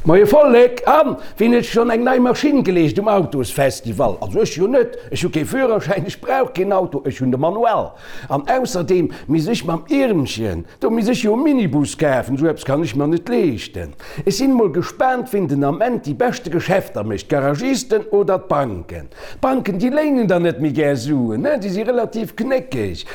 Moie Vollek! An wien huet schonn eng nei Maschinn geleescht um Autosfestival? Also ech jo net, ech hu kee Führerschäin, ech brauch keen Auto, ech hunn de Manuell. An ausserdeem misst ech mam Iermchen, do misst ech jo e Minibus kafen, esou eppes kann ech mer net leeschten. Ech sinn mol gespaant wien den Ament déi beschte Geschäfter mécht, d'Garagisten oder d'Banken. D'Banken déi léinen der net méi gär Suen, ne, déi si relativ knéckeg.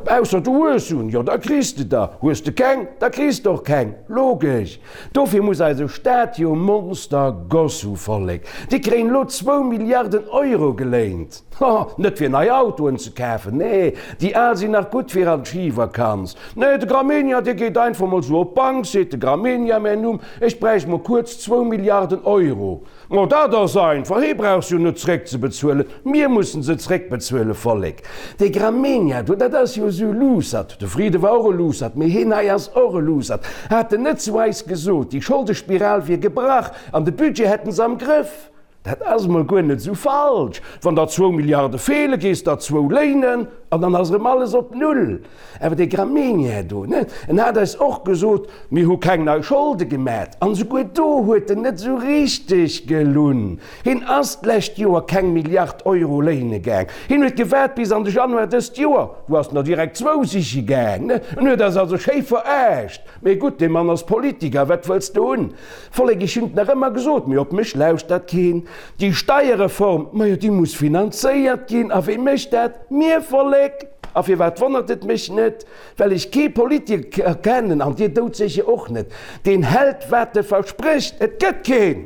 Ausser du hues Suen, jo da kriss de der, hues de keng, da kriss de och keng, logesch. Dofir muss eise Staat jo Monster Goss hu, Vollek. Déi kréien elo zwou Milliarden Euro geléint, ho, net fir nei Autoen ze kafen, nee, déi al sinn nach gutt fir an d'Schivakanz. Nee, de Gramegna, dee geet einfach mol sou op d'Bank, seet de Gramegna, mäin Numm, ech bräicht mol kuerz zwou Milliarden Euro. Ma dat ass einfach, hee brauch se jo net zréckzebezuelen, mir mussen se zréckbezuelen, Vollek. Dee Gramegna do, dat ass jo esou e Luussert, de Friede war och e Luussert, mee heen hei ass och e Luussert. Hat en net zu eis gesot, déi Scholdespiral wier gebrach an de Budget hätten se am Grëff? Dat ass emol guer net esou falsch. Wann der zwou Milliarde feelen, gees der zwou léinen an dann ass erëm alles op Null. Awer dee Gramegna do, ne, en hat eis och gesot, mir hu keng nei Scholde gemat. An esouguer do huet en net esou richteg gelunn. Hien ass d'lescht Joer keng Milliard Euro léine gaang. Hien huet gewaart bis an de Januar dëst Joer, do ass en der direkt zwou siche gaang, ne. En huet eis also schéi veraascht. Mee gutt, dee Mann ass Politiker, wat wëlls de hunn? Vollek, ech hunn et nach ëmmer gesot, mee op mech lauschtert keen. Déi Steierreform, majo déi muss finanzéiert ginn. A wee mécht dat? Mir, Vollek! A firwat wonnert et mech net? Well ech kee Politiker kennen, an dir doudsécher och net, deen hält wat e versprécht. Et gëtt keen!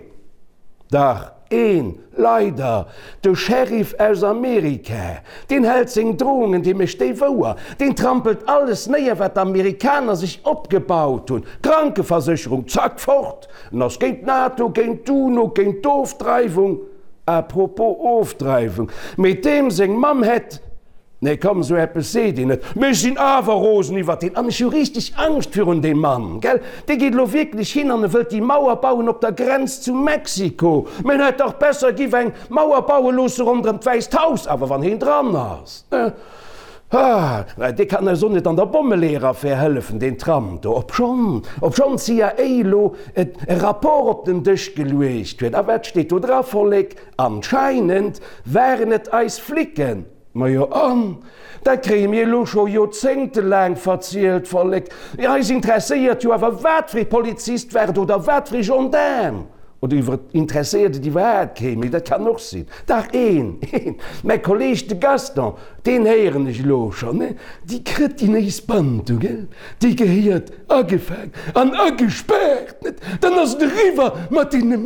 Dach, een, leider, de Sheriff aus Amerika. Deen hält seng Drohungen, dee mécht déi wouer. Deen trampelt alles néier, wat d'Amerikaner sech opgebaut hunn. Krankeversécherung, zack, fort! En ass géint d'NATO, géint d'UNO, géint d'Ofdreiwung. À propos Ofdreiwung, mee deem seng Mamm hätt. Nee komm, sou eppes seet een net. Mee ech sinn awer rosen iwwert deen an ech hu richteg Angscht virun deem Mann, gell? Dee geet elo wierklech hin an e wëllt déi Mauer bauen op der Grenz zu Mexiko. Mee en hätt dach besser giff eng Mauer baue loosse ronderëm d'Wäisst Haus, awer wann heen dran ass, ne? Ah, dee kann eis och net an der Bommeleeër-Affär hëllefen, deen Trump do, obschonn, obschonn d'CIA elo e Rapport op den Dësch geluecht huet. A wat steet do dra, Vollek? Anscheinend waren et eis Flicken. Majo an? Dat kréie mir elo scho joerzéngtelaang verzielt, Vollek. Eis interesséiert jo awer wat fir ee Polizist war et oder wat fir ee Gendaarm. Oder iwwer interesséiert et iwwerhaapt kee méi, dat kann och sinn. Dach een, een, mäi Kolleeg de Gaston, deen héieren ech elo schonn, ne, déi krëtinéis Band do, gell, déi gehéiert agefaang an agespaart, net? Dann ass et eriwwer mat deene